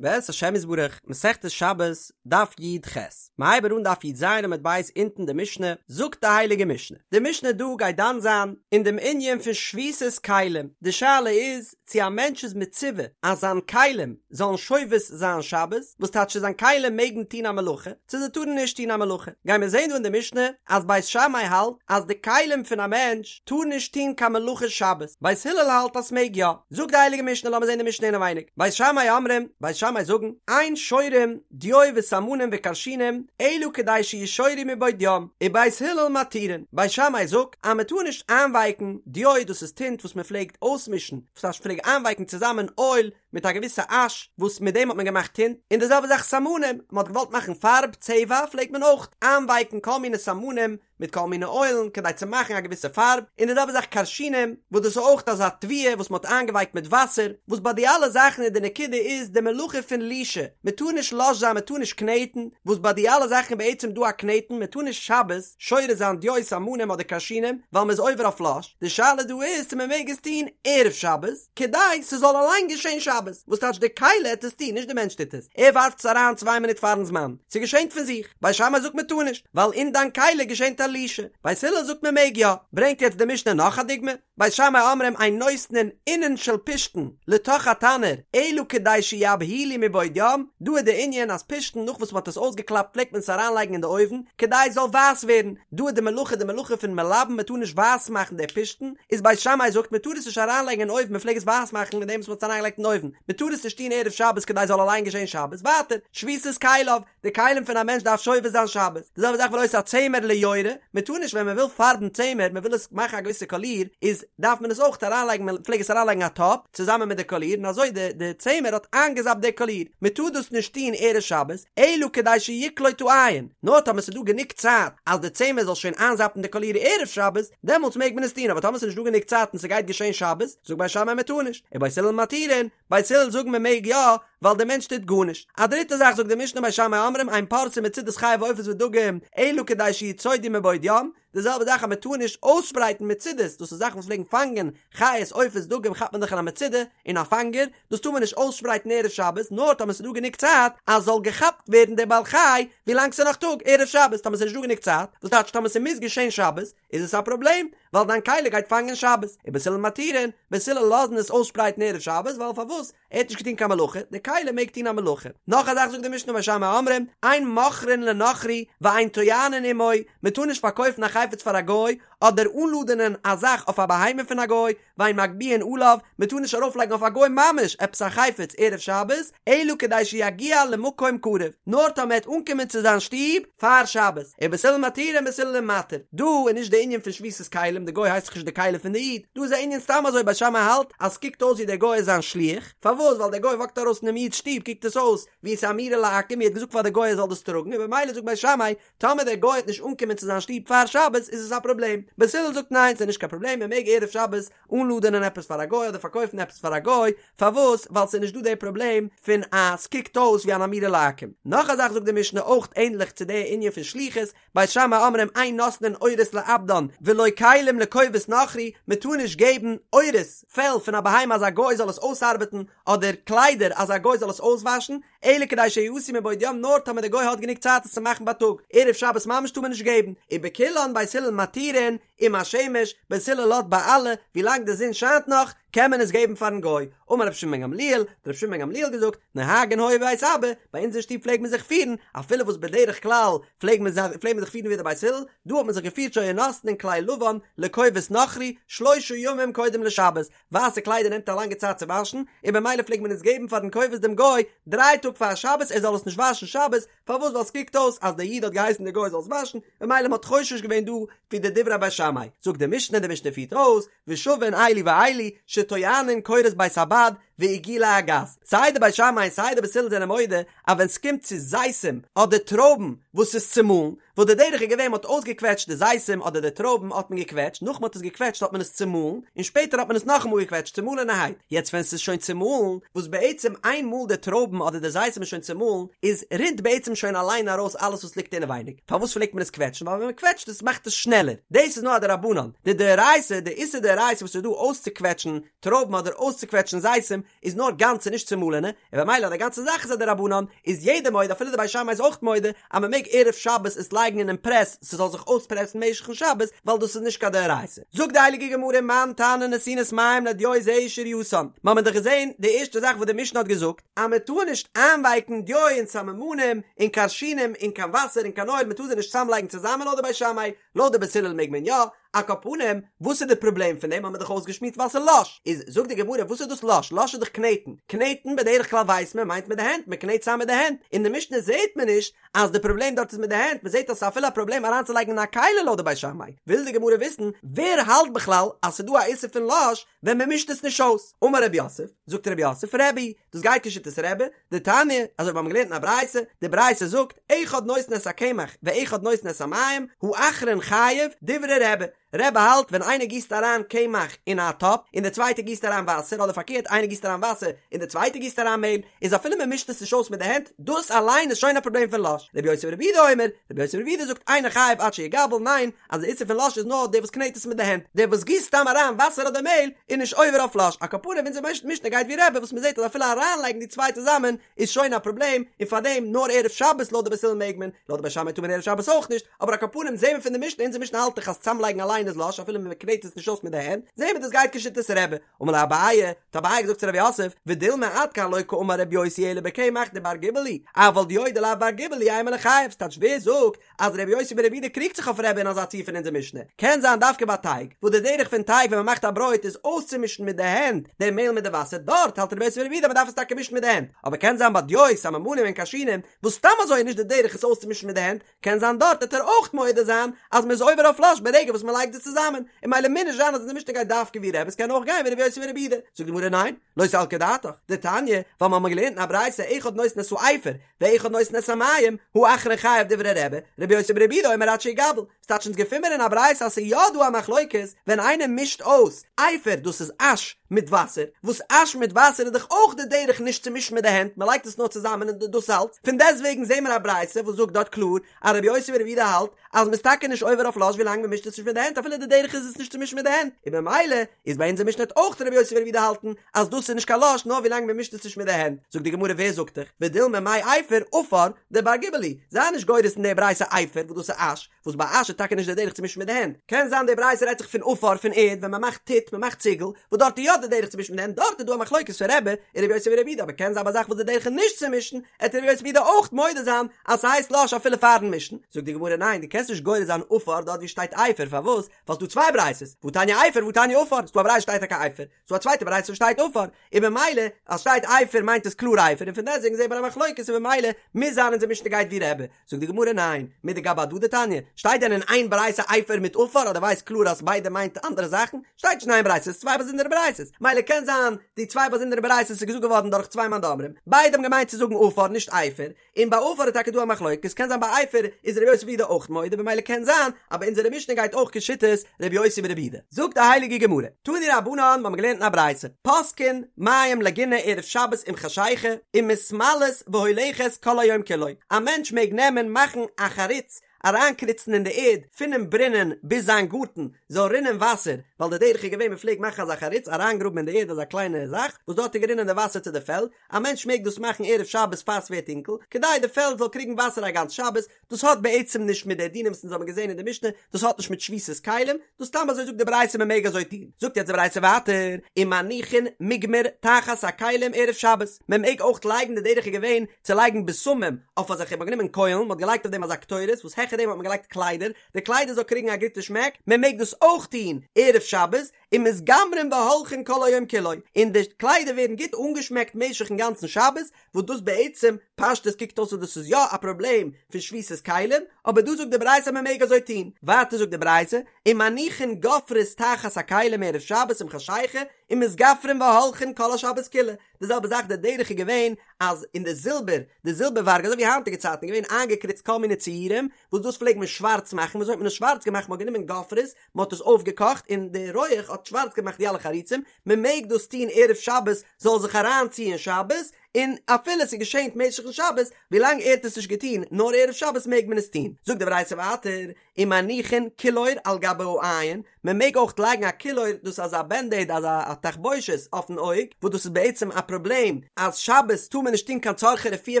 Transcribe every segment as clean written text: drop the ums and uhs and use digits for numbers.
בעזרת השם יתברך, מסכת שבת, דף י"ח. מ'הייבט אן דף י"ז עמוד ב' אונטן די משנה, זאגט די הייליגע משנה. די משנה דא גייט דן זיין אין דעם ענין פון שביתת כלים, די שאלה איז צו א מענטש איז מצווה אז זיין כלים זאלן שובת זיין שבת, וואס טייטש צו זיין כלים מעגן טון א מלאכה, צו זיי טארן נישט טון א מלאכה. גיימיר זען דא אין די משנה אז בית שמאי האלט אז די כלים פון א מענטש טאר נישט טון קיין מלאכה שבת, בית הלל האלט אז ס'מעג יא. זאגט די הייליגע משנה, לאמיר זען די משנה אינעווייניג, בית שמאי אומרים, בית שמאי זאגן, אין שורין דיו וסמנים וכרשינים אלא כדי שישורו מבעוד יום, ובית הלל מתירין, בית שמאי זאגט אז מען טאר נישט איינווייקן דיו דאס איז טינט וואס מען פלעגט אויסמישן, וואס טייטש פלעג איינווייקן צוזאמען אויל מיט א געוויסע אש וואס מיט דעם האט מען געמאכט טינט, און די זעלבע זאך סמנים, מען האט געוואלט מאכן פארב, צבע, פלעגט מען אויך איינווייקן כל מיני סמנים מיט כל מיני אוילן כדי צו מאכן א געוויסע פארב, און די זעלבע זאך כרשינים, וואס דאס איז אויך אזא תבואה וואס מען האט איינגעווייקט מיט וואסער, וואס ביי די אלע זאכן איז די נקודה איז די מלאכה פון לישה, מען טאר נישט לש זיין מען טאר נישט קנעטן, וואס ביי די אלע זאכן איז בעצם דא א קנעטן, מען טאר נישט שבת שורה זיין דיו סמנים אדער כרשינים, ווייל מען איז עובר אויף לש, די שאלה דא איז צו מען מעג עס טון ערב שבת, כדי ס'זאל אליין געשען שבת, וואס טייטש די כלי העט עס טון נישט די מענטש טוט עס, ער ווארפט עס אריין צוויי מינוט פארן זמן, ס'געשענט פון זיך, בית שמאי זאגט מען טאר נישט, ווייל אין דיין כלי געשענט א לישה, בית הלל זאגט מען מעג יא, ברענגט יעצט די משנה נאך א דוגמא, בית שמאי אומרים אין נותנין אונין של פשתן לתוך התנור אלא כדי שיבהילו מבעוד יום, דא איז די ענין אז פשתן נאך וואס מ'האט עס אויסגעקלאפט פלעגט מען עס אריינלייגן אין די אויוון כדי עס זאל ווייס ווערן, דא איז די מלאכה די מלאכה פון מלבן מען טאר נישט ווייס מאכן די פשתן, איז בית שמאי זאגט מען טאר עס נישט אריינלייגן אין אויוון מען פלעג עס ווייס מאכן מיט דעם וואס מען האט עס אריינגעלייגט אין אויוון, מען טאר עס נישט טון ערב שבת כדי עס זאל אליין געשען שבת, ווייטער, שביתת כליו, די כלים פון א מענטש דארף שובת זיין שבת, די זעלבע זאך ולא את הצמר ליורה, מען טאר נישט ווען מען וויל פארבן צמר, מען וויל עס מאכן א געוויסע קאליר, איז דארף מען עס אויך אריינלייגן מען פלעג עס אריינלייגן א טאפ צוזאמען מיט די קאליר און אזוי די די צמר האט איינגעזאפט די קאליר, מען טאר דאס נישט טון ערב שבת, אלא כדי שיקלוט העין, נאר טאמער ס'איז דא גענוג צייט אז די צמר זאל שוין איינזאפן די קאליר ערב שבת, דעמאלטס מעג מען עס טון, אבער טאמער ס'איז נישט דא גענוג צייט און ס'גייט געשען שבת, זאגט בית שמאי מען טאר נישט, ובית הלל מתירין, בית הלל זאגן מען מעג יא, ווייל דער מענטש טוט גארנישט. א דריטע זאך זאגט די משנה בית שמאי אומרים אין פורסין מצודות חיה ועופות ודגים, אלא כדי שיצודו מבעוד יום, די זעלבע זאך אז מען טאר נישט אויסשפרייטן מצודות, דאס איז זאכן וואס פלעגן פאנגען חיות עופות דגים כאפט מען דאך אין א מצודה, אין א פאנגער, דאס טאר מען נישט אויסשפרייטן ערב שבת, נאר טאמער ס'איז דא גענוג צייט אז זאל געכאפט ווערן דער בעל חי ווילאנג ס'איז נאך טאג, ערב שבת, טאמער ס'איז נישט דא גענוג צייט, וואס טייטש טאמער ס'מוז געשען שבת, איז עס א פראבלעם, ווייל דיין כלי גייט פאנגען שבת, ובית הלל מתירין, בית הלל לאזן עס אויסשפרייטן ערב שבת, ווייל פארוואס? ער האט נישט געטון קיין מלאכה, די כלי מעג טון א מלאכה. נאך א זאך זאגט די משנה בית שמאי אומרים, אין מוכרין לנכרי ואין טוענין עמו, מען טאר נישט פארקויפן א חפץ פאר א גוי, אדער אנלאדענען א זאך אויף א בהמה פון א גוי, ואין מגביהין עליו, מען טאר נישט ארויפלייגן אויף א גוי ממש עפעס א חפץ ערב שבת, אלא כדי שיגיע למקום קרוב, נאר טאמער ער וועט אנקומען צו זיין שטוב פאר שבת, ובית הלל מתירין בית הלל מתיר, דא איז נישט די ענין פון שביתת כלים, די גוי הייסט דאך נישט די כלי פון די איד, דא איז א ענין סתם אזוי בית שמאי האלט אז סקוקט אויס ווי דער גוי איז זיין שליח, פארוואס ווייל דער גוי וואקט ארויס פונעם איד'ס שטוב קוקט עס אויס ווי עס איז אמירה לעכו"ם, ער האט געזאגט פאר די גוי ער זאל דאס טראגן און במילא זאגט בית שמאי טאמער דער גוי וועט נישט אנקומען צו זיין שטוב פאר שבת איז עס א פראבלעם, בית הלל זאגט ניין ס'איז נישט קיין פראבלעם מען מעג ערב שבת אנלאדענען עפעס פאר א גוי אדער פארקויפן עפעס פאר א גוי, פארוואס ווייל ס'איז נישט דא די פראבלעם פון אז ס'קוקט אויס ווי אן אמירה לעכו"ם. נאך א זאך זאגט די משנה אויך ענדליך צו די ענין פון שליחות, בית שמאי אומרים אין נותנין עורות לעבדן ולא כלים לכובס נכרי, מען טאר נישט געבן עורות, פעל פון א בהמה אז א גוי זאל עס אויסארבעטן, אדער קליידער אז א גוי זאל עס אויסוואשן, אלא כדי שיעשו מבעוד יום נאר טאמער די גוי האט גענוג צייט עס צו מאכן בייטאג, ערב שבת ממש טאר מען נישט געבן, ובכולן בית הלל מתירין עם השמש, בית הלל לאזט ביי אלע, ווילאנג די זון שיינט נאך, קען מען עס געבן פארן גוי, אמר רבי שמעון בן גמליאל, האט רבי שמעון בן גמליאל געזאגט, נוהגין היו בבית אבא, ביי אונז אין שטוב פלעג מען זיך פירן, אפילו וואס בדרך כלל פלעג מען זיך פלעג מען זיך פירן ווי די בית הלל, דא האט מען זיך געפירט שהיו נותנין כלי לבן לכובס נכרי שלושה ימים קודם לשבת, ווייסע קליידער נעמט א לאנגע צייט צו וואשן, און במילא פלעגט מען עס געבן פארן כובס דעם גוי דריי טאג פאר שבת ער זאל עס נישט וואשן שבת, פארוואס ווייל סקוקט אויס אז דער איד האט געהייסן דער גוי זאל עס וואשן, במילא מ'האט חושש געווען דא ווי די דברי בית שמאי, זאגט די משנה, די משנה פירט אויס, ושווין אלו ואלו, שטוענין קורות בית הבד ועיגולי הגת, סיי די בית שמאי און סיי די בית הלל זענען מודה אז ווען סקומט צו זיתים אדער טרויבן וואס איז צומאלן, וואס די דרך איז געווען מ'האט אויסגעקוועטשט די זיתים אדער די טרויבן האט מען געקוועטשט, נאך מ'האט עס געקוועטשט האט מען עס צומאלן, און שפעטער האט מען עס נאכאמאל געקוועטשט צומאלענערהייט, יעצט ווען ס'איז שוין צומאלן, וואס בעצם איין מאל די טרויבן אדער די זיתים איז שוין צומאלן, איז רינט בעצם שוין אליין ארויס אלעס וואס ליגט אינעווייניג, פארוואס פלעגט מען עס קוועטשן? ווייל ווען מ'קוועטשט עס מאכט עס שנעלער, דאס איז נאר א דרבנן, די דאורייתא, די איסור דאורייתא וואס איז דא אויסצוקוועטשן טרויבן אדער אויסצוקוועטשן זיתים, איז נאר גאנצע נישט צומאלענע, און במילא אז די גאנצע זאך איז א דרבנן, איז יעדער מודה אפילו די בית שמאי איז אויך מודה אז מען מעג ערב שבת עס לייגן אינעם פרעס ס'זאל זיך אויספרעסן משך'ן שבת ווייל דאס איז נישט קיין דאורייתא. זאגט די הייליגע גמרא מאן תנא נתינת מים לדיו זו היא שרייתן, מ'האמיר דאך געזען די ערשטע זאך וואס די משנה האט געזאגט אז מען טאר נישט איינווייקן דיו און סממנים און כרשינים אין קיין וואסער און קיין אויל מען טאר זיי נישט צוזאמלייגן צוזאמען לויט די בית שמאי, לויט די בית הלל מעג מען יא, על כל פנים, וואס איז די פראבלעם פון דעם האט מען דאך אויסגעשמועסט ווייל ס'איז לש, איז זאגט די גמרא וואס איז דאס לש, לש איז דאך קנעטן, קנעטן בדרך כלל ווייסט מען מיינט מיט די הענט, מען קנעט צאם מיט די הענט, אין די משנה זעט מען נישט אז די פראבלעם דארט איז מיט די הענט, מען זעט אז ס'איז אפילו א פראבלעם אריינצולייגן אין א כלי לויט די בית שמאי, וויל די גמרא וויסן ווער האלט בכלל אז ס'איז דא א איסור פון לש ווען מען מישט עס נישט אויס, אמר רב יוסף, זאגט רב יוסף, רבי, דאס גייט כשיטת רבי, דתניא, אזוי ווי מיר האבן געלערנט אין א ברייתא, די ברייתא זאגט, אחד נותן את הקמח ואחד נותן את המים, האחרון חייב, דברי רבי, רבי האלט ווען איינער גיסט אריין קמח אין א טאפ און דער צווייטער גיסט אריין וואסער אדער פארקערט איינער גיסט אריין וואסער און דער צווייטער גיסט אריין מעהל איז אפילו מען מישט עס נישט אויס מיט די הענט דאס אליין איז שוין א פראבלעם פון לש רבי יוסי ברבי יהודה אומר רבי יוסי ברבי יהודה זאגט אינו חייב עד שיגבל ניין אז די איסור פון לש איז נאר דער וואס קנעט עס מיט די הענט דער וואס גיסט סתם אריין וואסער אדער מעהל איז נישט עובר אויף לש על כל פנים אונזער משנה גייט ווי רבי וואס מען זעט אז אפילו אריינלייגן די צוויי צוזאמען איז שוין א פראבלעם, און פארדעם נאר ערב שבת לויט די בית הלל מעג מען, לויט די בית שמאי טאר מען ערב שבת אויך נישט, אבער על כל פנים זעהן מיר פון די משנה, אונזער משנה האלט דאך אז צאמלייגן אליין איז לש אפילו מען קנעט עס נישט אויס מיט די הענט, זעהן מיר דאס גייט כשיטת רבי, אמר ליה אביי, האט אביי געזאגט צו רב יוסף, ודילמא עד כאן לא קאמר רבי יוסי אלא בקמח דבר גיבול הוא, אבל דיו דלאו בר גיבול הוא אימא ליחייב, ס'טייטש ווער זאגט אז רבי יוסי ברבי יהודה קריגט זיך אויף רבי אין אזא ציור פון אונזער משנה, קען זיין דווקא ביי טייג, וואס די דרך פון טייג ווען מען מאכט א ברויט איז אויסצומישן מיט די הענט די מעהל מיט די וואסער, דארט האלט רבי יוסי ברבי יהודה אז מען דארף עס טאקע מישן מיט די הענט, אבער קען זיין ביי דיו, סממנים און כרשינים, וואס סתם אזוי איז נישט די דרך עס אויסצומישן מיט די הענט, קען זיין דארט וועט ער אויך מודה זיין אז מען איז עובר אויף לש ברגע וואס מען לייגט זיי צוזאמען, און ממילא מוז נישט זיין אז אונזער משנה גייט דווקא ווי רבי, עס קען אויך גיין ווי רבי יוסי ברבי יהודה, זאגט די גמרא ניין, לא סלקא דעתך, דתניא, ווייל מיר האבן געלערנט אין א ברייתא אחד נותן את האפר, ואחד נותן את המים, האחרון חייב דברי רבי, רבי יוסי ברבי יהודה אומר עד שיגבל. ס'טייטש אונז געפין מיר אין א ברייתא אז ס'איז יא דא א מחלוקת ווען איינער מישט אויס אפר דאס איז אש מיט וואסער, וואס אש מיט וואסער איז דאך אויך די דרך נישט צו מישן מיט די הענט מ'לייגט עס נאר צוזאמען און דאס אלץ, פון דעסטוועגן זעהן מיר א ברייתא וואס זאגט דארט קלאר אז רבי יוסי ברבי יהודה האלט אז מ'איז טאקע נישט עובר אויף לש ווילאנג מ'מישט עס נישט מיט די הענט אפילו די דרך איז עס נישט צו מישן מיט די הענט, און במילא איז ביי אונזער משנה וועט אויך רבי יוסי ברבי יהודה האלטן אז דאס איז נישט קיין לש נאר ווילאנג מען מישט עס נישט מיט די הענט, זאגט די גמרא ווער זאגט דיך, ודילמא מאי אפר עפר דבר גיבול הוא, זיי נישט גורס אין די ברייתא אפר וואס דאס איז אש, וואס ביי אש איז טאקע נישט די דרך צו מישן מיט די הענט, קען זיין די ברייתא רעדט זיך פון עפר פון ערד ווען מען מאכט טיט מען מאכט ציגל, וואס דארט איז יא די דרך צו מישן מיט די הענט דארט איז דא א מחלוקת פון רבי און רבי יוסי ברבי יהודה אבער קען זיין ביי א זאך וואס די דרך איז נישט צו מישן עט רבי יוסי ברבי יהודה אויך מודה זיין אז ס'הייסט לש אפילו פארן מישן, זאגט די גמרא ניין דו קענסט נישט גורס זיין עפר דארט ווי שטייט אפר פארוואס ווייל ס'דא צוויי ברייתות, והתניא אפר והתניא עפר, ס'דא א ברייתא שטייט טאקע אפר, ס'דא א צווייטע ברייתא וואס שטייט עפר, און במילא אז שטייט אפר מיינט עס קלאר אפר, און פון דעסטוועגן זעהט מען א מחלוקת און במילא מוז זיין אונזער משנה גייט ווי רבי, זאגט די גמרא ניין, מידי גבי הדדי תניא, שטייט דען אין איין ברייתא אפר מיט עפר אז דו ווייסט קלאר אז ביידע מיינט אנדערע זאכן, שטייט נישט אין איין ברייתא, ס'איז צוויי באזונדערע ברייתות, מילא קען זיין די צוויי באזונדערע ברייתות איז געזאגט געווארן דורך צוויי מאן דאמרים, ביידע האבן געמיינט צו זאגן עפר נישט אפר, און ביי עפר איז טאקע דא א מחלוקת, קען זיין ביי אפר איז רבי יוסי ברבי יהודה אויך מודה, במילא קען זיין אז ביי אונזערע משנה גייט אויך כשיטת רבי יוסי ברבי יהודה. זאגט די הייליגע גמרא, תנו רבנן, מיר האבן געלערנט אין א ברייתא, פותקין מים לגינה ערב שבת עם חשיכה, ומתמלאת והולכת כל היום כולו, א מענטש מעג נעמען מאכן א חריץ אריינקריצן אין די ערד פונעם ברונען ביז זיין גארטן זאל רינען וואסער, ווייל די דרך איז געווען מען פלעגט מאכן אזא חריץ אריינגראבן אין די ערד אזא קליינע זאך וואס דארט איז גערינען די וואסער צו די פעלד, א מענטש מעג דאס מאכן ערב שבת פאר ס'ווערט טונקל, כדי די פעלד זאל קריגן וואסער א גאנץ שבת, דאס האט בעצם נישט מיט די דינים וואס אונז האבן געזען אין די משנה, דאס האט נישט מיט שביתת כלים, דאס סתם אזוי זאגט די ברייתא מען מעג אזוי טון, זאגט יעצט די ברייתא ווייטער, ומניחין מוגמר תחת הכלים ערב שבת, מען מעג אויך לייגן די דרך איז געווען צו לייגן בשמים אויף אזעלכע, מען האט גענומען קוילן, מען האט געלייגט אויף דעם אזא קטורת וואס העכער דעם האט מען געלייגט קליידער, די קליידער זאל קריגן א גוטע שמעק, מען מעג דאס אויך טון ערב שבת, ומתגמרין והולכין כל היום כולו, און די קליידער ווערן גוט אנגעשמעקט משך'ן גאנצן שבת, וואס דאס בעצם פשטות קוקט אויס אז דאס איז יא א פראבלעם פון שביתת כלים, אבער דא זאגט די ברייתא אז מען מעג אזוי טון, ווייטער זאגט די ברייתא, ומניחין גופרית תחת הכלים ערב שבת עם חשיכה, ומתגפרין והולכין כל השבת כולה, די זעלבע זאך די דרך איז געווען אז אין די זילבער, די זילבערווארג אזוי ווי היינטיגע צייטן איז געווען איינגעקריצט כל מיני ציורים, וואס דאס פלעגט מען שווארץ מאכן, ווי אזוי האט מען עס שווארץ געמאכט, מען האט גענומען גופרית, מען האט עס אויפגעקאכט און די רויעך האט שווארץ געמאכט די אלע חריצים, מען מעג דאס טון ערב שבת זאל זיך אריינציען שבת, און אפילו ס'איז געשענט משך'ן שבת, ווילאנג ער האט עס נישט געטון נאר ערב שבת מעג מען עס טון. זאגט די ברייתא ווייטער, ומניחין קילור על גבי העין, מען מעג אויך לייגן א קילור, דאס איז אזא בענדעיד אזא א תחבושת אויפן אויג, וואס דאס איז בעצם א פראבלעם אז שבת טאר מען נישט טון קיין צרכי רפואה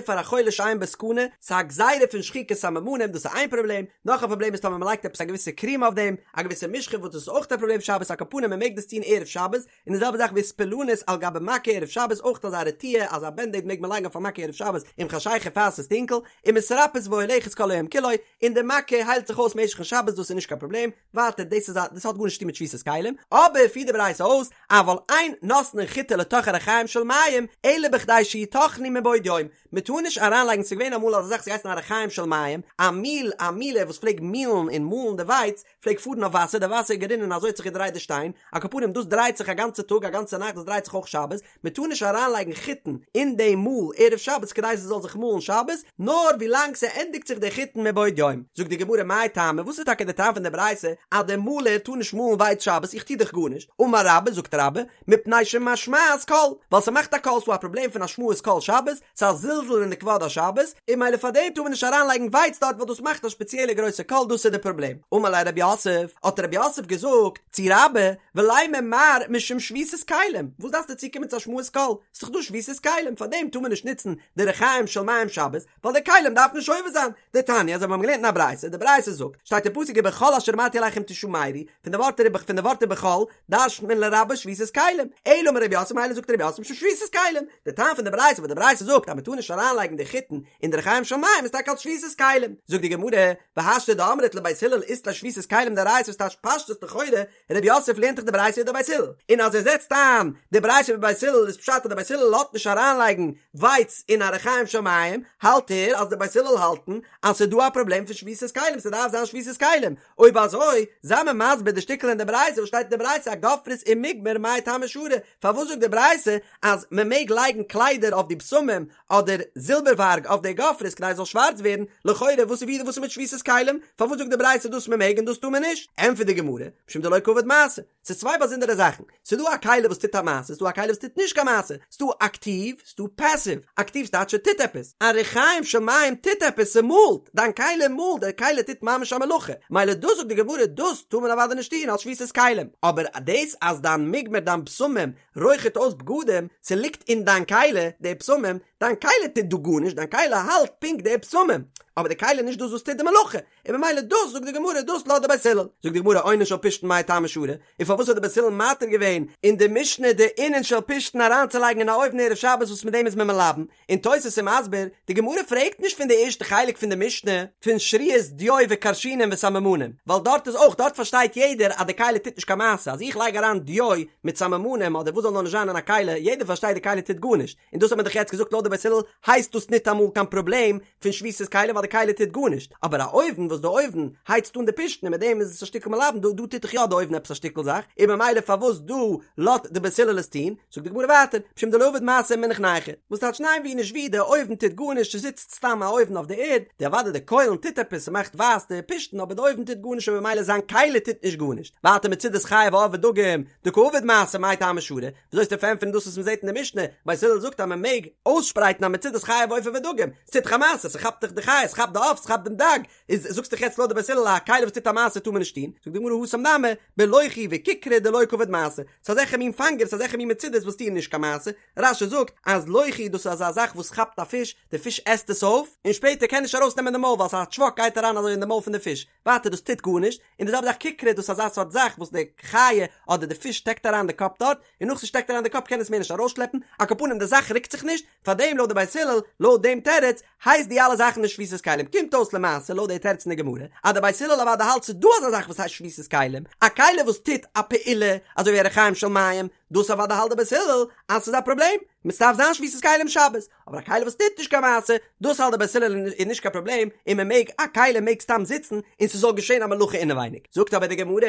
פאר א חולה שאין בו סכנה, ס'איז א גזירה פון שחיקת סממנים, דאס איז איין פראבלעם, נאך א פראבלעם איז טאמער מען לייגט עפעס א געוויסע קריעם אויף דעם, א געוויסע משחה וואס דאס איז אויך א פראבלעם שבת על כל פנים מען מעג דאס טון ערב שבת, און די זעלבע זאך ואיספלנית על גבי מכה ערב שבת אויך אזא רטיה אזא בענדעיד מעג מען לייגן אויף א מכה ערב שבת עם חשיכה פאר ס'איז טונקל, ומתרפאת והולכת כל היום כולו, און די מכה היילט זיך אויס משך'ן שבת דאס איז נישט קיין פראבלעם, ווייטער דאס איז א דאס האט גארנישט צו טון מיט שביתת כלים, אבער פירט די ברייתא אויס אבל אין נותנין חיטה לתוך הרחיים של מים אלא בכדי שיטחנו מבעוד יום, מען טאר נישט אריינלייגן ס'איז געווען אמאל אזא זאך ס'האט געהייסן א רחיים של מים, א מיל א מילער וואס פלעג מילן און מאלן די ווייץ, פלעגט פארן אויף וואסער, די וואסער איז גערינען אזוי האט זיך געדרייט די שטיין, על כל פנים דאס דרייט זיך א גאנצע טאג א גאנצע נאכט דאס דרייט זיך אויך שבת, מען טאר נישט אריינלייגן חיטן אין די מאל ערב שבת כדי ס'זאל זיך מאלן שבת, נאר ווילאנג ס'ענדיגט זיך די חיטן מבעוד יום. זאגט די גמרא מאי טעמא וואס איז טאקע די טעם פון די ברייתא אז די מאלער טאר נישט מאלן ווייץ שבת איך טו דאך גארנישט, אמר רבה זאגט רבה מפני שמשמעת קול, ווייל ס'מאכט א קול ס'דא א פראבלעם פון השמעת קול שבת, ס'איז א זלזול אין די כבוד השבת, און ממילא פאר דעם טאר מען נישט אריינלייגן ווייץ דארט ווייל דאס מאכט א שפעציעלע גרויסע קול דאס איז די פראבלעם. אמר ליה רב יוסף, האט רב יוסף געזאגט צו רבה, ולימא מר משום שביתת כלים, וואס דארפסטו צוקומען צו השמעת קול, ס'איז דאך דא שביתת כלים, פאר דעם טאר מען נישט נוצן די רחיים של מים שבת, ווייל די כלים דארף מען שובת זיין. דתניא, אזוי ווי מיר האבן געלערנט אין א ברייתא, די ברייתא זאגט, שטייט אין פסוק ובכל אשר אמרתי אליכם תשמרו, פון די ווארט פון די ווארט ובכל, דרש'נט מען לרבות שביתת כלים, אלא אמר רב יוסף מילא זאגט רב יוסף משום שביתת כלים, די טעם פון די ברייתא וואס די ברייתא זאגט אז מען טאר נישט אריינלייגן די חיטן אין די רחיים של מים איז טאקע אלס שביתת כלים, זאגט די גמרא, והשתא דאמרת לבית הלל אית ליה שביתת כלים דאורייתא וואס טייטש פשטות לכאורה, רב יוסף לערנט דאך די ברייתא ווי די בית הלל, און אז ער זעצט איין די ברייתא ווי בית הלל איז פשט אז די בית הלל לאזט נישט אריינלייגן ווייץ אין א רחיים של מים, האלט ער אז די בית הלל האלטן אז ס'איז דא א פראבלעם פון שביתת כלים ס'דארף זיין שביתת כלים, אויב אזוי, זיי מיר מסביר די שטיקל אין די ברייתא וואס שטייט אין די ברייתא אגופרית ומגמר מאי טעמא שרי, פארוואס זאגט די ברייתא אז מען מעג לייגן קליידער אויף די בשמים אדער זילבערווארג אויף די גופרית כדי עס זאל שווארץ ווערן, לכאורה וואס איז וואס איז מיט שביתת כלים, פארוואס זאגט די ברייתא דאס מען מעג און דאס טאר מען נישט? ענטפערט די גמרא, משום דלא קעביד מעשה, ס'איז צוויי באזונדערע זאכן, ס'איז דא א כלי וואס טוט א מעשה, ס'איז דא א כלי וואס טוט נישט קיין מעשה, ס'איז דא אקטיוו, ס'איז דא פעסיוו, אקטיוו ס'טייטש ס'טוט עפעס, א רחיים של מים טוט עפעס, ס'מאלט, דיין כלי מאלט, די כלי טוט ממש א מלאכה, מילא דאס זאגט די גמרא דאס טאר מען אוודאי נישט טון אלס שביתת כלים, אבער דאס אז דיין מגמר דיין בשמים רויכערט אויס בגדים, ס'ליגט אין דיין כלי די בשמים, דיין כלי טוט דא גארנישט, דיין כלי האלט פונקט די בשמים, אבער די כלי איז נישט דאס וואס טוט די מלאכה, און ממילא דאס זאגט די גמרא דאס לאזט די בית הלל, זאגט די גמרא אונן של פשתן מאי טעמא שרי, און פארוואס האט די בית הלל מתיר געווען אין די משנה די אונן של פשתן אריינצולייגן אין א אויוון ערב שבת וואס מיט דעם איז מען מלבן, און תוס' איז מסביר, די גמרא פרעגט נישט פון די ערשטע חלק פון די משנה פון שריית דיו וכרשינין וסממנים, ווייל דארט איז אויך דארט פארשטייט יעדער אז די כלי טוט נישט קיין מעשה, אז איך לייג אריין דיו מיט סממנים אדער וואס זאל נאר נישט זיין אין א כלי, יעדער פארשטייט די כלי טוט גארנישט, און דאס האט מען דאך יעצט געזאגט לויט די בית הלל הייסט דאס ניטאמאל קיין פראבלעם פון שביתת כלים ווייל די כלי טוט גארנישט, אבער א אויוון וואס די אויוון הייצט אן די פשתן און מיט דעם איז עס א שטיקל מלבן דא דא טוט דאך יא די אויוון עפעס א שטיקל זאך, און ממילא פארוואס דא לאזט די בית הלל עס טון, זאגט די גמרא ווייטער, משום דלא עביד מעשה ומנח נייחא, וואס טייטש ניין ווי נישט ווי די אויוון טוט גארנישט ס'זיצט סתם א אויוון אויף די ערד, די אוודאי די קוילן טוט עפעס ס'מאכט ווייס די פשתן אבער די אויוון טוט גארנישט און ממילא זיין כלי טוט נישט גארנישט, ווייטער מצודת חיה ועוף ודגים דקא עביד מעשה מאי טעמא שרי, וויאזוי וועסטו פארענטפערן דאס וואס מ'זעט אין די משנה, בית הלל זאגט אז מ'מעג אויסשפרייטן א מצודת חיה ועוף ודגים, ס'טוט דאך א מעשה, ס'כאפט דאך די חיה, ס'כאפט די עוף, ס'כאפט דעם דג, איז זאגסט דאך יעצט לויט די בית הלל א כלי וואס טוט א מעשה טאר מען נישט טון, זאגט די גמרא התם נמי, בלוכי וככרי דלא קעביד מעשה, ס'איז אזעלכע מין פאנגערס אזעלכע מין מצודות וואס טוען נישט קיין מעשה, רש"י זאגט אז לוכי דאס איז אזא זאך וואס כאפט א פיש, די פיש עסט עס אויף, און שפעטער קען נישט ארויס נעמען די מויל ווייל ס'איז א טשוואק גייט אריין אזוי אין די מויל פון די פיש, ווייטער דאס טוט גארנישט, און די זעלבע זאך ככרי דאס איז אזא סארט זאך וואס די חיה אדער די פיש שטעקט אריין די קאפ דארט, און נאך ס'שטעקט אריין די קאפ קען עס מער נישט ארויסשלעפן, על כל פנים די זאך רוקט זיך נישט, פארדעם לויט די בית הלל, לויט דעם תירוץ, הייסט די אלע זאכן נישט שביתת כלים, קומט אויס למעשה לויט די תירוץ אין די גמרא, אז די בית הלל אוודאי האלט ס'איז דא אזא זאך וואס הייסט שביתת כלים, א כלי וואס טוט א פעולה, אזוי ווי א רחיים של מים, דאס אוודאי האלט די בית הלל אז ס'איז א פראבלעם, ס'דארף זיין שביתת כלים שבת, אבער א כלי וואס טוט נישט קיין מעשה, דאס האלט די בית הלל איז נישט קיין פראבלעם, און מען מעג, א כלי מעג סתם זיצן און ס'זאל געשען א מלאכה אינעווייניג. זאגט אבער די גמרא,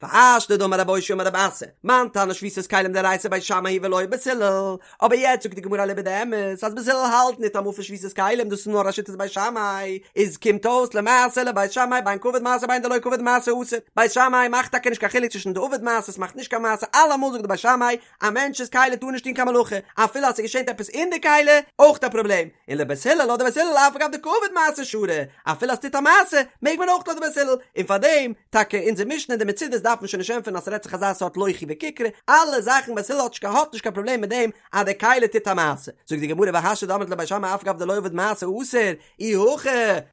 והשתא דאמר רב אושעיא אמר רב אסי, מאן תנא שביתת כלים דאורייתא בית שמאי היא ולא בית הלל, אבער יעצט זאגט די גמרא אליבא דאמת אז בית הלל האלט ניטאמאל פון שביתת כלים דאס איז נאר א שיטת בית שמאי, איז קומט אויס למעשה לבית שמאי בין קעביד מעשה בין דלא קעביד מעשה אסור, בית שמאי מאכט טאקע נישט קיין חילוק צווישן דעביד מעשה ס'מאכט נישט קיין מעשה אלעמאל זאגט די בית. בית שמאי, א מענטש'ס כלי טאר נישט טון קיין מלאכה, אפילו אז ס'געשענט עפעס אין די כלי, אויך א פראבלעם, און לבית הלל לויט די בית הלל אף על גב דקא עביד מעשה שרי, אפילו אז ס'טוט א מעשה, מעג מען אויך לויט די בית הלל, און פארדעם, טאקע אונזער משנה די מצודות דארף מען שוין נישט ענטפערן אז ס'רעדט זיך אזא סארט לוכי וכיכרא, אלע זאכן בית הלל האט נישט האט נישט קיין פראבלעם מיט דעם אז די כלי טוט א מעשה, זאגט די גמרא והשתא דאמרת לבית שמאי אף על גב דלא עביד מעשה אסור, אי הכי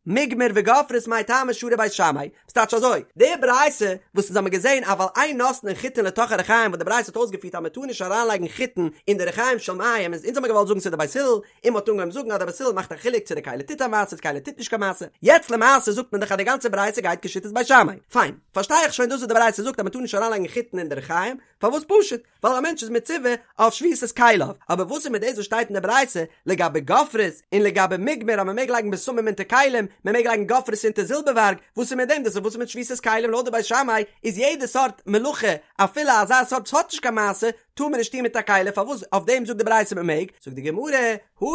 מוגמר וגופרית מאי טעמא שרי בית שמאי, ס'טייטש אזוי, די ברייתא וואס אונז האמיר געזען אבל אין נותנין חיטין לתוך הרחיים וואס די ברייתא האט אויסגעפירט אז מ'טאר נישט אריינלייגן חיטין אין די רחיים של מים איז אונז האמיר געוואלט זאגן ס'איז די בית הלל און מ'האט אנגעהויבן זאגן אז די בית הלל מאכט א חילוק צו די כלי טוט א מעשה צו די כלי טוט נישט קיין מעשה, יעצט למעשה זאגט מען דאך אז די גאנצע ברייתא גייט כשיטת בית שמאי, פיין, פארשטיי איך שוין דאס וואס די ברייתא זאגט אז מ'טאר נישט אריינלייגן חיטין אין די רחיים, פארוואס פשוט? ווייל א מענטש איז מצווה אויף שביתת כליו, אבער וואס איז מיט דאס וואס שטייט אין די ברייתא לגבי גופרית און לגבי מוגמר אז מען מעג לייגן בשמים אונטער כלים, מען מעג לייגן גופרית אונטער זילבערווארג, וואס איז מיט דעם דאס איז וואס איז מיט שביתת כלים לויט די בית שמאי איז יעדע סארט מלאכה אפילו אזא סארט וואס האט נישט קיין מעשה טאר מען נישט טון מיט א כלי פארוואס אויף דעם זאגט די ברייתא מען מעג, זאגט די גמרא,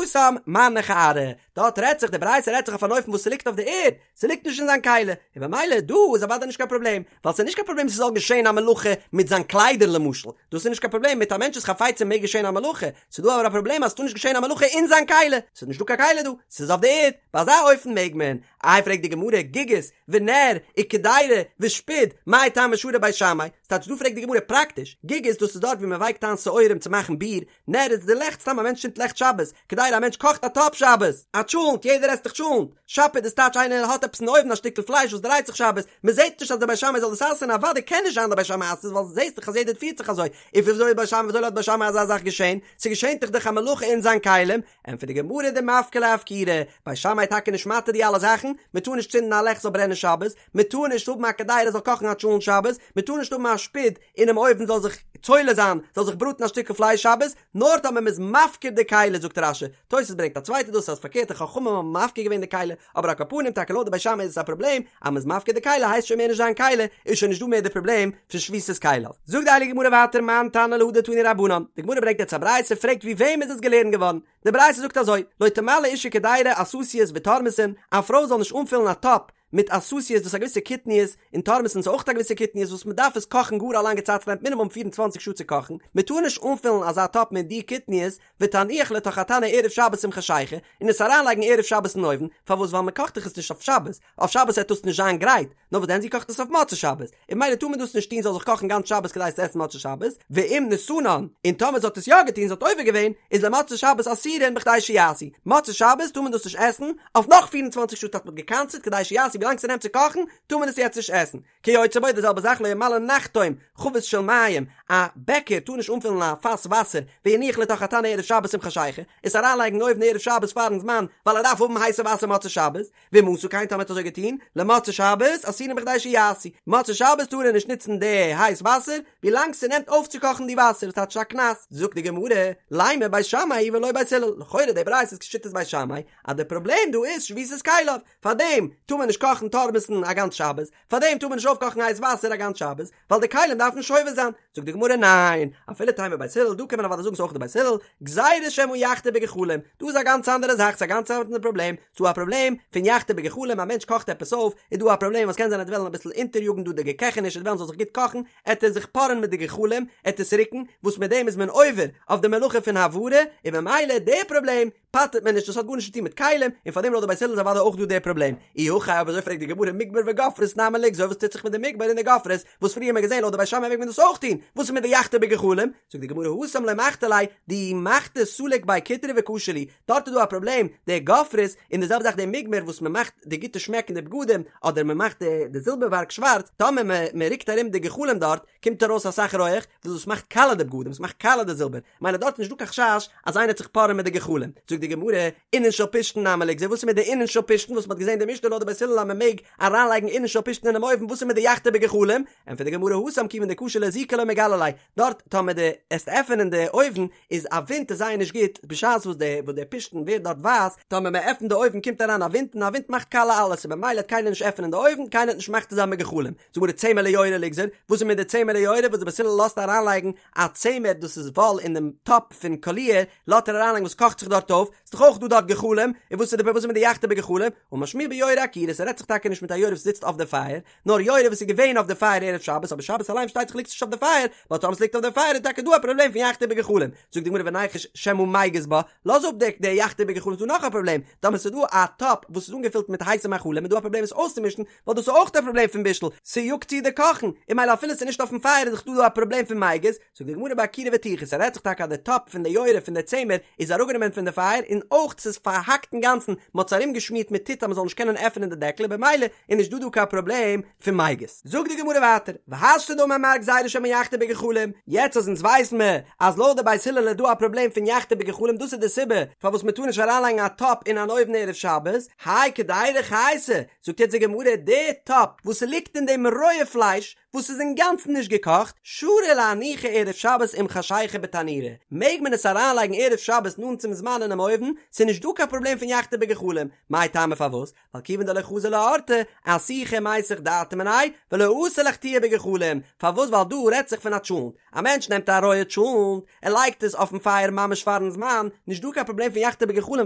התם מנח אארעא, דארט רעדט זיך די ברייתא רעדט זיך אויף אן אופן וואס ס'ליגט אויף די ערד, ס'ליגט נישט אין זיין כלי, און במילא דא איז אוודאי נישט קיין פראבלעם, ווייל ס'איז נישט קיין פראבלעם ס'זאל געשען א מלאכה מיט זיין קליידער למשל, דאס איז נישט קיין פראבלעם, מיט א מענטש'ס חפצים מעג געשען א מלאכה, ס'איז דא אבער א פראבלעם אז ס'טאר נישט געשען א מלאכה אין זיין כלי, ס'איז נישט דא קיין כלי דא, ס'איז אויף די ערד, ביי אזא אופן מעג מען. איי פרעגט די גמרא, גיגית, ונר, וקדירה, ושפוד, מאי טעמא שרי בית שמאי, ס'טייטש דא פרעגט די גמרא פראקטיש, גיגית דאס איז דארט ווי מ'ווייקט איין שעורים צו מאכן ביר, נר איז די לעכט סתם א מענטש צינדט לעכט שבת, קדירה א מענטש קאכט א טאפ שבת, א טשולנט יעדער עסט דאך טשולנט, שפוד איז טייטש איינער האט עפעס אין אויוון א שטיקל פלייש וואס דרייט זיך שבת, מען זעט נישט אז די בית שמאי זאל דאס אסר'ן אוודאי קען נישט זיין די בית שמאי אסר'ט עס ווייל זעסט דאך אז יעדער פירט זיך אזוי, און וויאזוי איז בית שמאי וויאזוי לאזט בית שמאי אזא זאך געשען, ס'געשענט דאך דאך א מלאכה אין זיין כלים, ענטפערט די גמרא דמפקר ליה אפקורי, בית שמאי טאקע נישט מתיר די אלע זאכן, מען טאר נישט צינדן א לעכט זאל ברענען שבת, מען טאר נישט האבן א קדירה זאל קאכן א טשולנט שבת, מען טאר נישט האבן א שפוד אינעם אויוון זאל זיך צולה זיין, זאל זיך בראטן א שטיקל פלייש שבת, נאר טאמער מ'איז מפקיר די כלי, זאגט רש"י, תוס' ברענגט א צווייטע דאס אז פארקערט די חכמים האבן מפקיר געווען די כלי, אבער על כל פנים טאקע לויט די בית שמאי איז עס א פראבלעם, אז מ'איז מפקיר די כלי הייסט שוין מער נישט זיין כלי, איז שוין נישט דא מער די פראבלעם פון שביתת כליו. זאגט די הייליגע גמרא ווייטער מאן תנא להא דתנו רבנן, די גמרא ברענגט יעצט א ברייתא פרעגט ווי וועם איז עס געלערנט געווארן, די ברייתא זאגט אזוי, לא תמלא אשה קדירה עססיות ותורמסין, א פרוי זאל נישט אנפילן א טאפ מיט עססיות דאס איז א געוויסע קטניות, און תורמסין איז אויך א געוויסע קטניות וואס מען דארף עס קאכן גאר א לאנגע צייט ס'נעמט מינימום 24 שעה צו קאכן, מען טאר נישט אנפילן אזא טאפ מיט די קטניות, ותניח לתוך התנור ערב שבת עם חשיכה, און עס אריינלייגן ערב שבת אין אויוון, פארוואס ווייל מען קאכט דאך עס נישט אויף שבת, אויף שבת וועט דאס נישט זיין גרייט, נאר וואס דען זי קאכט עס אויף מוצאי שבת, און ממילא טאר מען דאס נישט טון זאל זיך קאכן גאנץ שבת כדי עס צו עסן מוצאי שבת, ואם נתנן, און טאמער זי האט עס יא געטון זי האט עובר געווען, איז למוצאי שבת אסורין בכדי שיעשו, מוצאי שבת טאר מען דאס נישט עסן, אויף נאך 24 שעה האט מען גע'קנס'ט כדי שיעשו ווילאנג ס'נעמט צו קאכן, טאר מען עס יעצט נישט עסן. כיוצא בו די זעלבע זאך לא ימלא נחתום חבית של מים, א בעקער טאר נישט אנפילן א פאס וואסער, ויניח לתוך התנור ערב שבת עם חשיכה, עס אריינלייגן אין אויוון ערב שבת פארן זמן, ווייל ער דארף האבן הייסע וואסער מוצאי שבת, ואם עשה כן טאמער האט אזוי געטון, למוצאי שבת אסורין בכדי שיעשו, מוצאי שבת טאר ער נישט נוצן די הייס וואסער, ווילאנג ס'נעמט אויפצוקאכן די וואסער, וואס טייטש א קנס, זאגט די גמרא, לימא בית שמאי היא ולא בית הלל, לכאורה די ברייתא איז כשיטת בית שמאי, אז די פראבלעם דא איז שביתת כליו, פארדעם טאר מען נישט קאכן תורמסין א גאנץ שבת, פארדעם טאר מען נישט אויפקאכן הייס וואסער א גאנץ שבת, ווייל די כלים דארפן שובת זיין, זאגט די גמרא ניין, אפילו תימא בית הלל, דא קען מען אוודאי זאגן ס'איז אויך די בית הלל, גזירה שמא יחתה בגחלים, דא איז א גאנץ אנדערע זאך, ס'איז א גאנץ אנדערע פראבלעם, ס'דא א פראבלעם פון יחתה בגחלים, א מענטש קאכט עפעס אויף, איז דא א פראבלעם אז קען זיין ער וועט וועלן אביסל אונטעריאגן דא די געקעכעניש, ער וועט וועלן ס'זאל זיך גוט קאכן, עט ער זיך פארען מיט די גחלים, עט עס רוקן, וואס מיט דעם איז מען עובר אויף די מלאכה פון הבערה, און ממילא די פראבלעם פטר'ט מען נישט, דאס האט גארנישט צו טון מיט כלים, און פארדעם לויט די בית הלל איז אוודאי אויך דא די פראבלעם. אי הכי אויב אזוי פרעגט די גמרא מוגמר וגופרית נמי ליגזור וואס טוט זיך מיט די מוגמר און די גופרית וואס פריער האט מען געזען לויט די בית שמאי מעג מען דאס אויך טון, וואס איז מיט די יחתה בגחלים? זאגט די גמרא התם לא מחתי ליה דאי מחתי סליק ביה קיטרא וקשי להו, דארט איז דא א פראבלעם, די גופרית, און די זעלבע זאך די מוגמר וואס מען מאכט די גוטע שמעק אין די בגדים, אדער מען מאכט די זילבערווארג שווארץ, טאמער מען רוקט ארום די גחלים דארט, קומט ארויס אסאך רויעך, וואס דאס מאכט קאלע די בגדים, עס מאכט קאלע די זילבער, מילא דארט איז נישט דא קיין חשש אז איינער וועט זיך פארען מיט די גחלים. זאגט די גמרא, אינן של פשתן נמי ליגזור, וואס איז מיט די אינן של פשתן וואס מען האט געזען אין די משנה לויט די בית הלל אז מען מעג אריינלייגן אינן של פשתן אינעם אויוון, וואס איז מיט די יחתה בגחלים? ענטפערט די גמרא, התם כיוון דקשי לאזוקי לא מגלי ליה, דארט טאמער דו עסט עפענען די אויוון איז א ווינט איז זייער נישט גוט, בשעת וואס די וואס די פשתן ווערט דארט ווייס, טאמער מען עפענט די אויוון קומט אריין א ווינט און א ווינט מאכט קאלע אלעס און במילא וועט קיינער נישט עפענען די אויוון, קיינער וועט נישט מחתה זיין בגחלים. זאגט די גמרא צמר ליורה ליגזור, וואס איז מיט די צמר ליורה וואס די בית הלל לאזט אריינלייגן א צמר דאס איז וואל אין דעם טאפ פון קאליר לאזט ער אריינלייגן וואס קאכט זיך דארט אויף, ס'איז דאך אויך דא דארט גחלים, און וואס איז די וואס איז מיט די יחתה בגחלים, אמר שמואל ביורה עקירה, ס'רעדט זיך. זיך טאקע נישט מיט א יורה וואס זיצט אויף די פייער, נאר יורה וואס איז געווען אויף די פייער ערב שבת, אבער שבת אליין פארשטייט זיך ליגט עס נישט אויף די פייער, ווייל טאמער עס ליגט אויף די פייער איז טאקע דא א פראבלעם פון יחתה בגחלים, זאגט די גמרא וניחוש שמא מיגז בה, לאז אפ די די יחתה בגחלים איז דא נאך א פראבלעם, טאמער ס'איז דא א טאפ וואס איז אנגעפילט מיט הייסע מאכלים איז דא א פראבלעם עס אויסצומישן, ווייל דאס איז אויך א פראבלעם פון בישול, ס'יאגט צו די קאכן, און ממילא אפילו ס'איז נישט אויפן פייער איז דאך דא דא א פראבלעם פון מיגז, זאגט די גמרא באקירה וטיחה, ס'רעדט זיך טאקע אז די טאפ פון די יורה פון די צמר איז אראפגענומען פון די פייער און אויך ס'איז פארהאקט אינגאנצן, מ'האט עס ארומגעשמירט מיט טיט אז מ'זאל נישט קענען עפענען די דעקל און במילא איז נישט דא דא קיין פראבלעם פון מיגז. זאגט די גמרא ווייטער, והשתא דאמר מר גזירה שמא יחתה בגחלים, יעצט אז אונז ווייסן מיר אז לויט די בית הלל איז דא א פראבלעם פון יחתה בגחלים דאס איז די סיבה פארוואס מ'טאר נישט אריינלייגן א טאפ אין אן אויוון ערב שבת, האי קדירה חייתא, זאגט יעצט די גמרא, די טאפ וואס ס'ליגט אין דעם רויע פלייש, וואס איז אינגאנצן נישט געקאכט, שרי לאנוחי ערב שבת עם חשיכה בתנורא, מעג מען עס אריינלייגן ערב שבת נאנט צום זמן אינעם אויוון, ס'איז נישט דא קיין פראבלעם פון יחתה בגחלים, מאי טעמא פארוואס? ווייל כיוון דלא חזי לאורתא, אסוחי ומיסח דעתיה מיניה, ולא אתי לאחתויי בגחלים, פארוואס ווייל דא רעדט זיך פון א טשולנט, א מענטש נעמט א רויע טשולנט, ער לייגט עס אויפן פייער ממש פארן זמן, נישט דא קיין פראבלעם פון יחתה בגחלים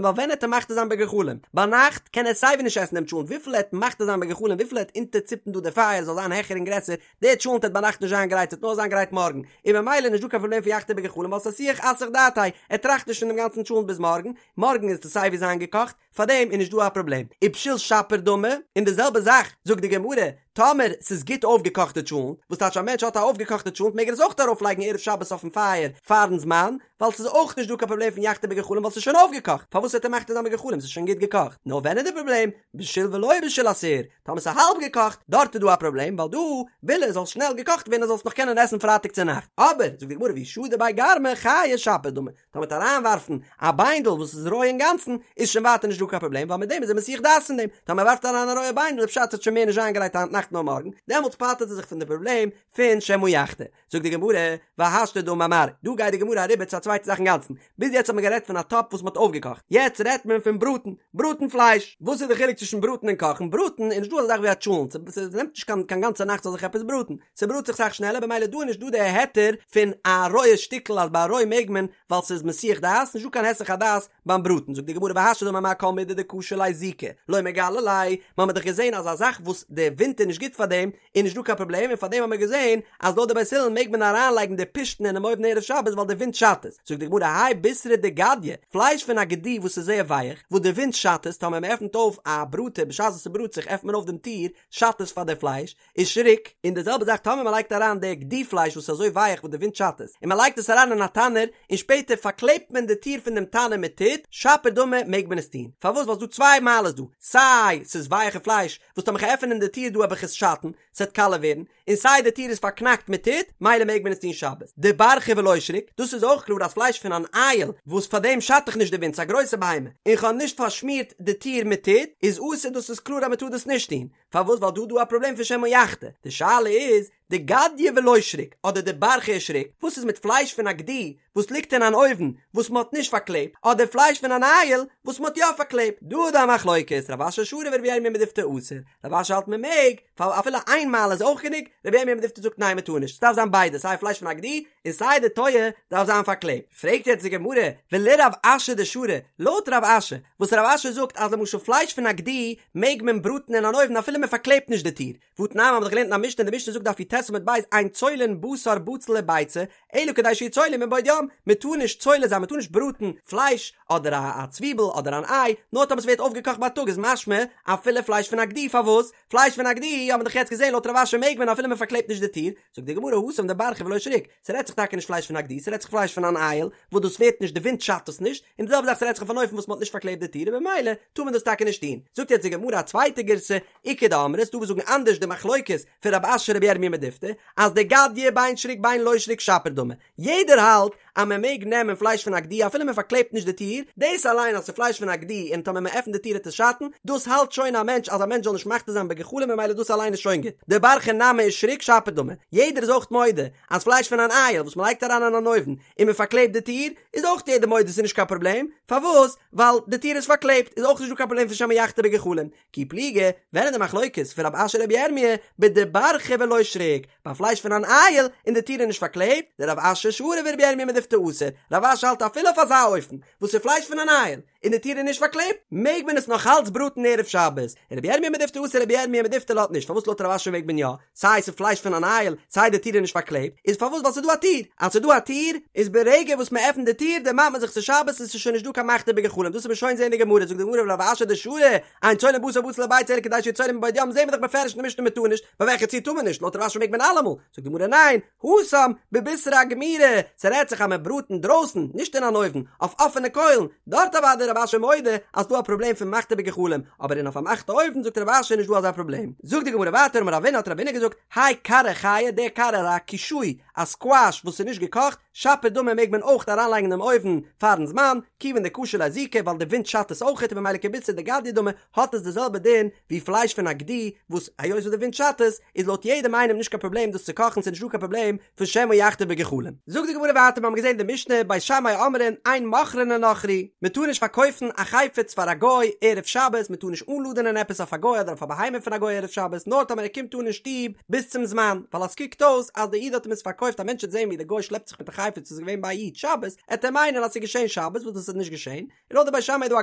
ווייל ווען עט ער מחתה זיין בגחלים? ביינאכט קען ער סייווי נישט עסן דעם טשולנט וויפיל ער עט מחתה זיין בגחלים וויפיל ער עט אונטערציפן דא די פייער זאל זיין העכער און גרעסער, דער טשולנט עט ביינאכט נישט זיין גרייט ס'עט נאר זיין גרייט מארגן, און ממילא נישט דא קיין פראבלעם פון יחתה בגחלים ווייל ס'איז אסוח אסח דעתיה, ער טראכט נישט פון דעם גאנצן טשולנט ביז מארגן, מארגן איז עס סייווי זיין געקאכט, פארדעם איז נישט דא א פראבלעם. ובשיל שפיר דמי, און די זעלבע זאך זאגט די גמרא, טאמער ס'איז גוט אויפגעקאכטע טשולנט, וואס טייטש א מענטש האט א אויפגעקאכטע טשולנט מעג ער עס אויך ארויפלייגן ערב שבת אויפן פייער פארן זמן, ווייל ס'איז אויך נישט דא קיין פראבלעם פון יחתה בגחלים ווייל ס'איז שוין אויפגעקאכט, פארוואס וועט ער מחתה זיין בגחלים ס'איז שוין גוט געקאכט? נאר ווען איז די פראבלעם? בשיל ולא בשיל אסור, טאמער ס'איז האלב געקאכט, דארט איז דא א פראבלעם ווייל דא וויל ער זאל שנעל געקאכט ווערן ער זאל עס נאך קענען עסן פרייטאג צונאכט, אבער זאגט די גמרא ואי שדי ביה גרמא חייא שפיר דמי, טאמער מ'וועט אריינווארפן א ביינדל וואס איז רוי אינגאנצן, איז שוין ווייטער נישט דא קיין פראבלעם ווייל מיט דעם איז ער מסיח דעת פון דעם, טאמער ער ווארפט אריין א רויע ביינדל איז פשט ס'וועט שוין מער נישט זיין גרייט היינט נאכט נאר מארגן, דעמאלטס פטר'ט ער זיך פון די פראבלעם פון שמא יחתה. זאגט די גמרא, והשתא דאמר מר, דא גייט די גמרא אריבער צו א צווייטע זאך אינגאנצן, ביז יעצט האט מען גערעדט פון א טאפ וואס מ'האט אויפגעקאכט, יעצט רעדט מען פון בראטן, בראטן פלייש, וואס איז די חילוק צווישן בראטן און קאכן, בראטן איז נישט דא אזא זאך ווי א טשולנט, ס'נעמט נישט קיין גאנצע נאכט ס'זאל זיך עפעס בראטן, ס'בראט זיך סאך שנעלער במילא דא איז נישט דא די היתר פון א רויע שטיקל אז ביי א רוי מעג מען ווייל ס'איז מסיח דעת, נישט דא קיין היסח הדעת ביים בראטן, זאגט די גמרא והשתא דאמר מר כל מידי דקשי ליה זיקא לא מגלי ליה, מ'האמיר דאך געזען אז א זאך וואס די ווינט איז נישט גוט פאר דעם איז נישט דא קיין פראבלעם און פארדעם האמיר געזען אז לויט די בית הלל מעג מען אריינלייגן די פשתן אינעם אויוון ערב שבת ווייל די ווינט שאדט עס, זאגט די גמרא האי בישרא דגדיא, פלייש פון א גדי וואס איז זייער ווייך, וואס די ווינט שאדט עס, טאמער מ'עפנט אויף א בראטער בשעת וואס ס'בראט זיך עפנט מען אויף דעם טיר, שאדט עס פאר די פלייש, ושריק, און די זעלבע זאך טאמער מען לייגט אריין די גדי פלייש וואס איז אזוי ווייך וואס די ווינט שאדט עס, און מען לייגט עס אריין אין א תנור, און שפעטער פארקלעבט מען די טיר פון דעם תנור מיט טיט, שפיר דמי, מעג מען עס טון. פארוואס? ווייל ס'איז דא צוויי מעלות דא, סיי ס'איז ווייעכע פלייש, וואס טאמער כ'עפען עפענען די טיר דא וועל איך עס שאטן, ס'עט קאלע ווערן, און סיי די טיר איז פארקנאקט מיט טיט, מילא מעג מען עס טון שבת. דברחא ולא שריק, דאס איז אויך קלאר אז פלייש פון אן אייל, וואס פאר דעם שאדט דאך נישט די ווינט, ס'איז א גרויסע בהמה, און כ'האב נישט פארשמירט די טיר מיט טיט, איז אסור, דאס איז קלאר אז מ'טאר דאס נישט טון. פארוואס ווייל דא איז דא א פראבלעם פון שמא יחתה, די שאלה איז דגדיא ולא שריק אדער דברחא ושריק, וואס איז מיט פלייש פון א גדי וואס ליגט אין אן אויוון וואס מען האט נישט פארקלעבט, אדער פלייש פון אן אייל וואס מען האט יא פארקלעבט, דא איז דא א מחלוקת, רב אשי שרי ורבי ירמיה מדיפתי אסור, רב אשי האלט מען מעג, ווייל אפילו איין מעלה איז אויך גענוג, רבי ירמיה מדיפתי זאגט ניין מען טאר נישט, ס'דארף זיין ביידע סיי פלייש פון א גדי און סיי די טויער דארף זיין פארקלעבט. פרעגט יעצט די גמרא, ולרב אשי דשרי, לויט רב אשי, וואס רב אשי זאגט אז למשל פלייש פון א גדי מעג מען בראטן אין אן אויוון אפילו מען פארקלעבט נישט די טיר, והתנן מ'האט דאך געלערנט אין א משנה, די משנה זאגט דף י"ט עמוד ב', אין צולין בשר בצל וביצה, אלא כדי שיצולו מבעוד יום, מען טאר נישט צולה זיין, מען טאר נישט בראטן פלייש אדער א א צוויבל אדער אן איי, נאר טאמער ס'ווערט אויפגעקאכט בייטאג איז משמע אפילו פלייש פון א גדי, פארוואס? פלייש פון א גדי האט מען דאך יעצט געזען לויט רב אשי מעג מען אפילו מען פארקלעבט נישט די טיר, זאגט די גמרא התם דברחא ולא שריק, ס'רעדט זיך טאקע נישט פלייש פון א גדי, ס'רעדט זיך פלייש פון אן אייל, וואס דאס ווערט נישט, די ווינט שאדט עס נישט, און די זעלבע זאך ס'רעדט זיך אויף אן אופן וואס מ'האט נישט פארקלעבט די טיר און במילא טאר מען דאס טאקע נישט טון. זאגט יעצט די גמרא א צווייטע גירסא, איכא דאמרי, ס'דא וואס זאגן אנדערש די מחלוקת פון רב אשי רבי ירמיה מדיפתי, אז דגדיא בין שריק בין לא שריק שפיר דמי, יעדער האלט אז מען מעג נעמען פלייש פון א גדי אפילו מען פארקלעבט נישט די טיר, דאס אליין אז ס'איז פלייש פון א גדי און טאמער מען עפנט די טיר וועט עס שאטן, דאס האלט שוין א מענטש אז א מענטש זאל נישט מחתה זיין בגחלים ממילא דאס אליין איז שוין גוט. דברחא נמי ושריק שפיר דמי, יעדער איז אויך מודה אז פלייש פון אן אייל וואס מען לייגט אריין אין אן אויוון און מען פארקלעבט די טיר, איז אויך יעדער מודה ס'איז נישט קיין פראבלעם, פארוואס? ווייל די טיר איז פארקלעבט איז אויך נישט דא קיין פראבלעם פון שמא יחתה בגחלים. כי פליגי, ווען איז די מחלוקת פון רב אשי רבי ירמיה בדברחא ולא שריק, ביי פלייש פון אן אייל און די טיר איז נישט פארקלעבט, דרב אשי שרי ורבי ירמיה מדיפתי. מדיפתי אסור, רב אשי האלט אפילו אויף אזא אופן, וואס איז פלייש פון אן איל, און די טיר איז נישט פארקלעבט, מעג מען עס נאך אלץ בראטן ערב שבת, און רבי ירמיה מדיפתי אסר רבי ירמיה מדיפתי לאזט נישט, פארוואס לויט רב אשי מעג מען יא, סיי ס'איז פלייש פון אן איל, סיי די טיר איז נישט פארקלעבט, איז פארוואס ווייל ס'איז דא א טיר, אז ס'איז דא א טיר, איז ברגע וואס מ'עפנט די טיר דערמאנט מען זיך ס'איז שבת און ס'איז שוין נישט דא קיין מחתה בגחלים, דאס וועט מען שוין זעהן אין די גמרא, זאגט די גמרא ורב אשי דשרי, אין צולין בשר בשר לביצה אלא כדי שיהא צולין מבעוד יום זעהן מיר דאך בפירוש אין די משנה מ'טאר נישט, ביי וועלכע ציור טאר מען נישט, לויט רב אשי מעג מען אלעמאל, זאגט די גמרא ניין, התם, בבישרא גמירי, ס'רעדט זיך אז מען בראט אינדרויסן, נישט אין אן אויוון, אויף אפענע קוילן, דארט אוודאי רב אשי מודה אז ס'דא א פראבלעם פון מחתה בגחלים, אבער אין אויף א פארמאכטע אויוון זאגט רב אשי נישט דא אזא פראבלעם. זאגט די גמרא ווייטער אמר רבינא האט רבינא געזאגט, האי קרא חייא, דער קרא איז א קישוי, א סקוואש וואס איז נישט געקאכט, שפיר דמי מעג מען אויך אריינלייגן אינעם אויוון פארן זמן, כיוון דקשי ליה זיקא ווייל די ווינט שאדט עס אויכעט און ממילא כבישרא דגדיא דמי האט עס די זעלבע דין ווי פלייש פון א גדי וואס היות וואס די ווינט שאדט עס איז לויט יעדעם איינעם נישט קיין פראבלעם דאס צו קאכן ס'איז נישט דא קיין פראבלעם פון שמא יחתה בגחלים. זאגט די גמרא ווייטער מיר האבן געזען די משנה בית שמאי אומרים אין מוכרין לנכרי מען טאר נישט פארקויפן א חפץ פאר א גוי ערב שבת מען טאר נישט אנלאדענען עפעס אויף א גוי אדער אויף א בהמה פון א גוי ערב שבת נאר טאמער ער קומט אן אין שטוב ביז צום זמן ווייל אז ס'קוקט אויס אז די איד האט אים עס פארקויפט א מענטש וועט זען ווי די גוי שלעפט זיך מיט א חפץ וואס איז געווען ביי א איד שבת עט ער מיינען אז ס'איז געשען שבת וואס דאס איז נישט געשען און לויט די בית שמאי איז דא א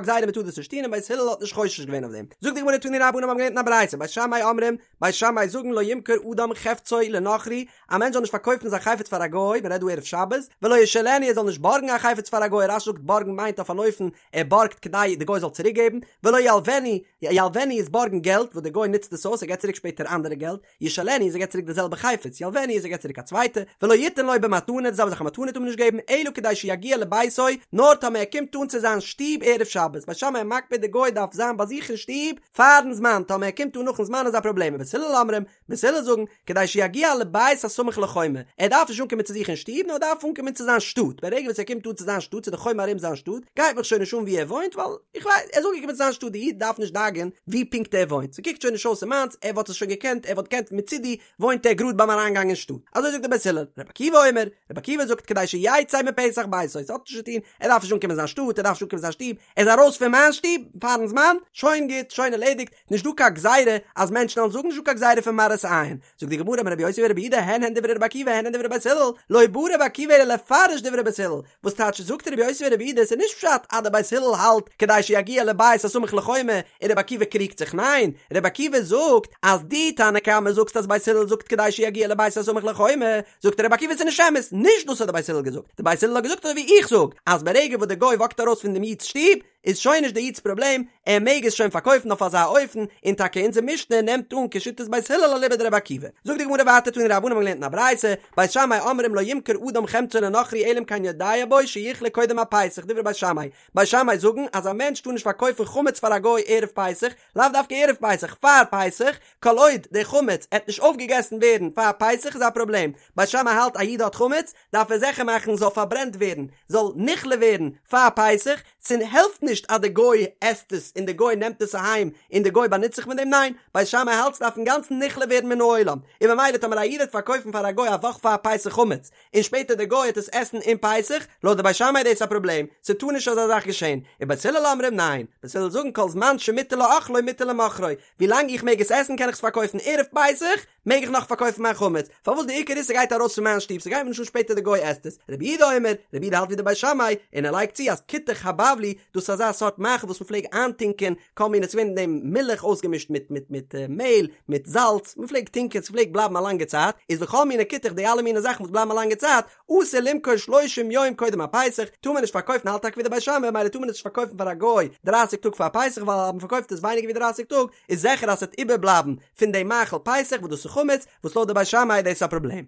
גזירה מען טאר דאס נישט טון און בית הלל האט נישט חושש געווען אויף דעם. זאגט די גמרא תנו רבנן מיר האבן געלערנט אין א ברייתא בית שמאי אומרים, בית שמאי זאגן לא ימכור אדם חפצו לנכרי, א מענטש זאל נישט פארקויפן זיין חפץ פאר א גוי, מען רעדט דא ערב שבת, ולא ישאילנו ער זאל נישט בארגן א חפץ פאר א גוי, רש"י זאגט בארגן מיינט אויף אן אופן ער בארגט כדי די גוי זאל צוריק געבן, ולא ילוונו, ילוונו איז בארגן געלט וואס די גוי נוצט עס אויס ער געבט צוריק שפעטער אנדערע געלט, ישאילנו איז ער געבט צוריק די זעלבע חפץ, ילוונו איז ער געבט צוריק א צווייטע, ולא יתן לו במתנה, די זעלבע זאך א מתנה טאר מען נישט געבן, אלא כדי שיגיע לביתו, נאר טאמער ער קומט אן צו זיין שטוב ערב שבת, בית שמאי מקפיד די גוי דארף זיין ביי זיך אין שטוב פארן זמן, טאמער ער קומט אן נאכן זמן איז א פראבלעם, ובית הלל אומרים, בית הלל זאגן, כדי שיגיע לבית הסמוך לחומה, ער דארף נישט אנקומען צו זיך אין שטוב, נאר ער דארף אנקומען צו זיין שטאט, ברגע וואס ער קומט אן צו זיין שטאט, צו די חומה ארום זיין שטאט, גייט מיך שוין נישט אן וואו ער וואוינט, ווייל. איך ווייס, ער איז אנגעקומען צו זיין שטאט, די איד דארף נישט דאגה'ן ווי פונקט ער וואוינט, ס'קוקט שוין נישט אויס ס'איז מיינס, ער וואלט עס שוין געקענט, ער וואלט געקענט מצידי וואוינט ער גראד ביים אריינגאנג אין שטאט. אזוי זאגט דער בית הלל. רבי עקיבא אומר, רבי עקיבא זאגט כדי שיצא מפתח ביתו, ס'האט נישט צו טון, ער דארף נישט אנקומען אין זיין שטאט, ער דארף נישט אנקומען אין זיין שטוב, ער איז ארויס פון מיין שטוב פארן זמן, שוין גוט, שוין ערלעדיגט, נישט דא קיין גזירה אז מענטשן וועלן זאגן, נישט דא קיין גזירה פון מראית עין. זאגט די גמרא אמר רבי יוסי ברבי יהודה הן הן דברי רבי עקיבא הן הן דברי בית הלל, לא בא רבי עקיבא אלא לפרש דברי בית הלל, וואס טייטש זאגט רבי יוסי ברבי יהודה עס איז נישט פשט אז די בית הלל האלט כדי שיגיע לבית הסמוך לחומה און רבי עקיבא קריגט זיך ניין רבי עקיבא זאגט אז דו תנא קמא זאגסט אז בית הלל זאגט כדי שיגיע לבית הסמוך לחומה זאגט רבי עקיבא עס איז נישט אמת נישט דאס האט די בית הלל געזאגט די בית הלל האט געזאגט אזוי ווי איך זאג אז ברגע וואס די גוי וואקט ארויס פון דעם איד'ס שטוב איז שוין נישט די איד'ס פראבלעם, ער מעג עס שוין פארקויפן אויף אזא אופן, און טאקע אונזער משנה נעמט אן כשיטת בית הלל אליבא דרבי עקיבא. זאגט די גמרא ווייטער תנו רבנן האבן געלערנט אין א ברייתא, בית שמאי אומרים לא ימכור אדם חמצו לנכרי אלא אם כן יודע בו שיכלה קודם הפסח דברי בית שמאי, בית שמאי זאגן אז א מענטש טאר נישט פארקויפן חמץ פאר א גוי ערב פסח, לאו דווקא ערב פסח, פאר פסח, כל עוד די חמץ עט נישט אויפגעגעסן ווערן פאר פסח איז א פראבלעם, בית שמאי האלט א איד האט חמץ, דארף ער זיכער מאכן זאל פארברענט ווערן, זאל נכלה ווערן פאר פסח, ס'העלפט נישט אז די גוי עסט עס און די גוי נעמט עס אהיים און די גוי באנוצט זיך מיט דעם, ניין, בית שמאי האלט ס'דארף אינגאנצן נכלה ווערן מן העולם, און ממילא טאמער א איד וועט פארקויפן פאר א גוי א וואך פאר פסח חמץ, און שפעטער די גוי וועט עס עסן אין פסח, לויט די בית שמאי איז דאס א פראבלעם, ס'טאר נישט אזא זאך געשען, און בית הלל אומרים ניין, בית הלל זאגן כל זמן שמותר לאכלו מותר למוכרו, ווילאנג איך מעג עס עסן קען איך עס פארקויפן ערב פסח, מעג איך נאך פארקויפן מיין חמץ? פארוואס די עיקר איז ס'גייט ארויס פון מיין שטוב ס'גייט מיר נישט אן שפעטער די גוי עסט עס. רבי יהודה אומר, רבי יהודה האלט ווי די בית שמאי, און ער לייגט צו אז כותח הבבלי, דאס איז אזא סארט מאכל וואס מ'פלעג איינטונקען כל מיני ס'געווען אין דעם מילך אויסגעמישט מיט מיט מיט מעהל מיט זאלץ, מ'פלעג טונקען ס'פלעגט בלייבן א לאנגע צייט, איז וכל מיני כותח די אלע מיני זאכן וואס בלייבן א לאנגע צייט, אסור למכור שלושים יום קודם הפסח, טאר מען נישט פארקויפן האלט טאקע ווי די בית שמאי ממילא טאר מען עס נישט פארקויפן פאר א גוי דרייסיג טאג פאר פסח ווייל אז מ'פארקויפט עס ווייניגער ווי דרייסיג טאג איז זיכער אז ס'וועט איבערבלייבן פון דעם מאכל פסח וואס דאס איז חמץ, וואס לויט די בית שמאי איז דאס א פראבלעם.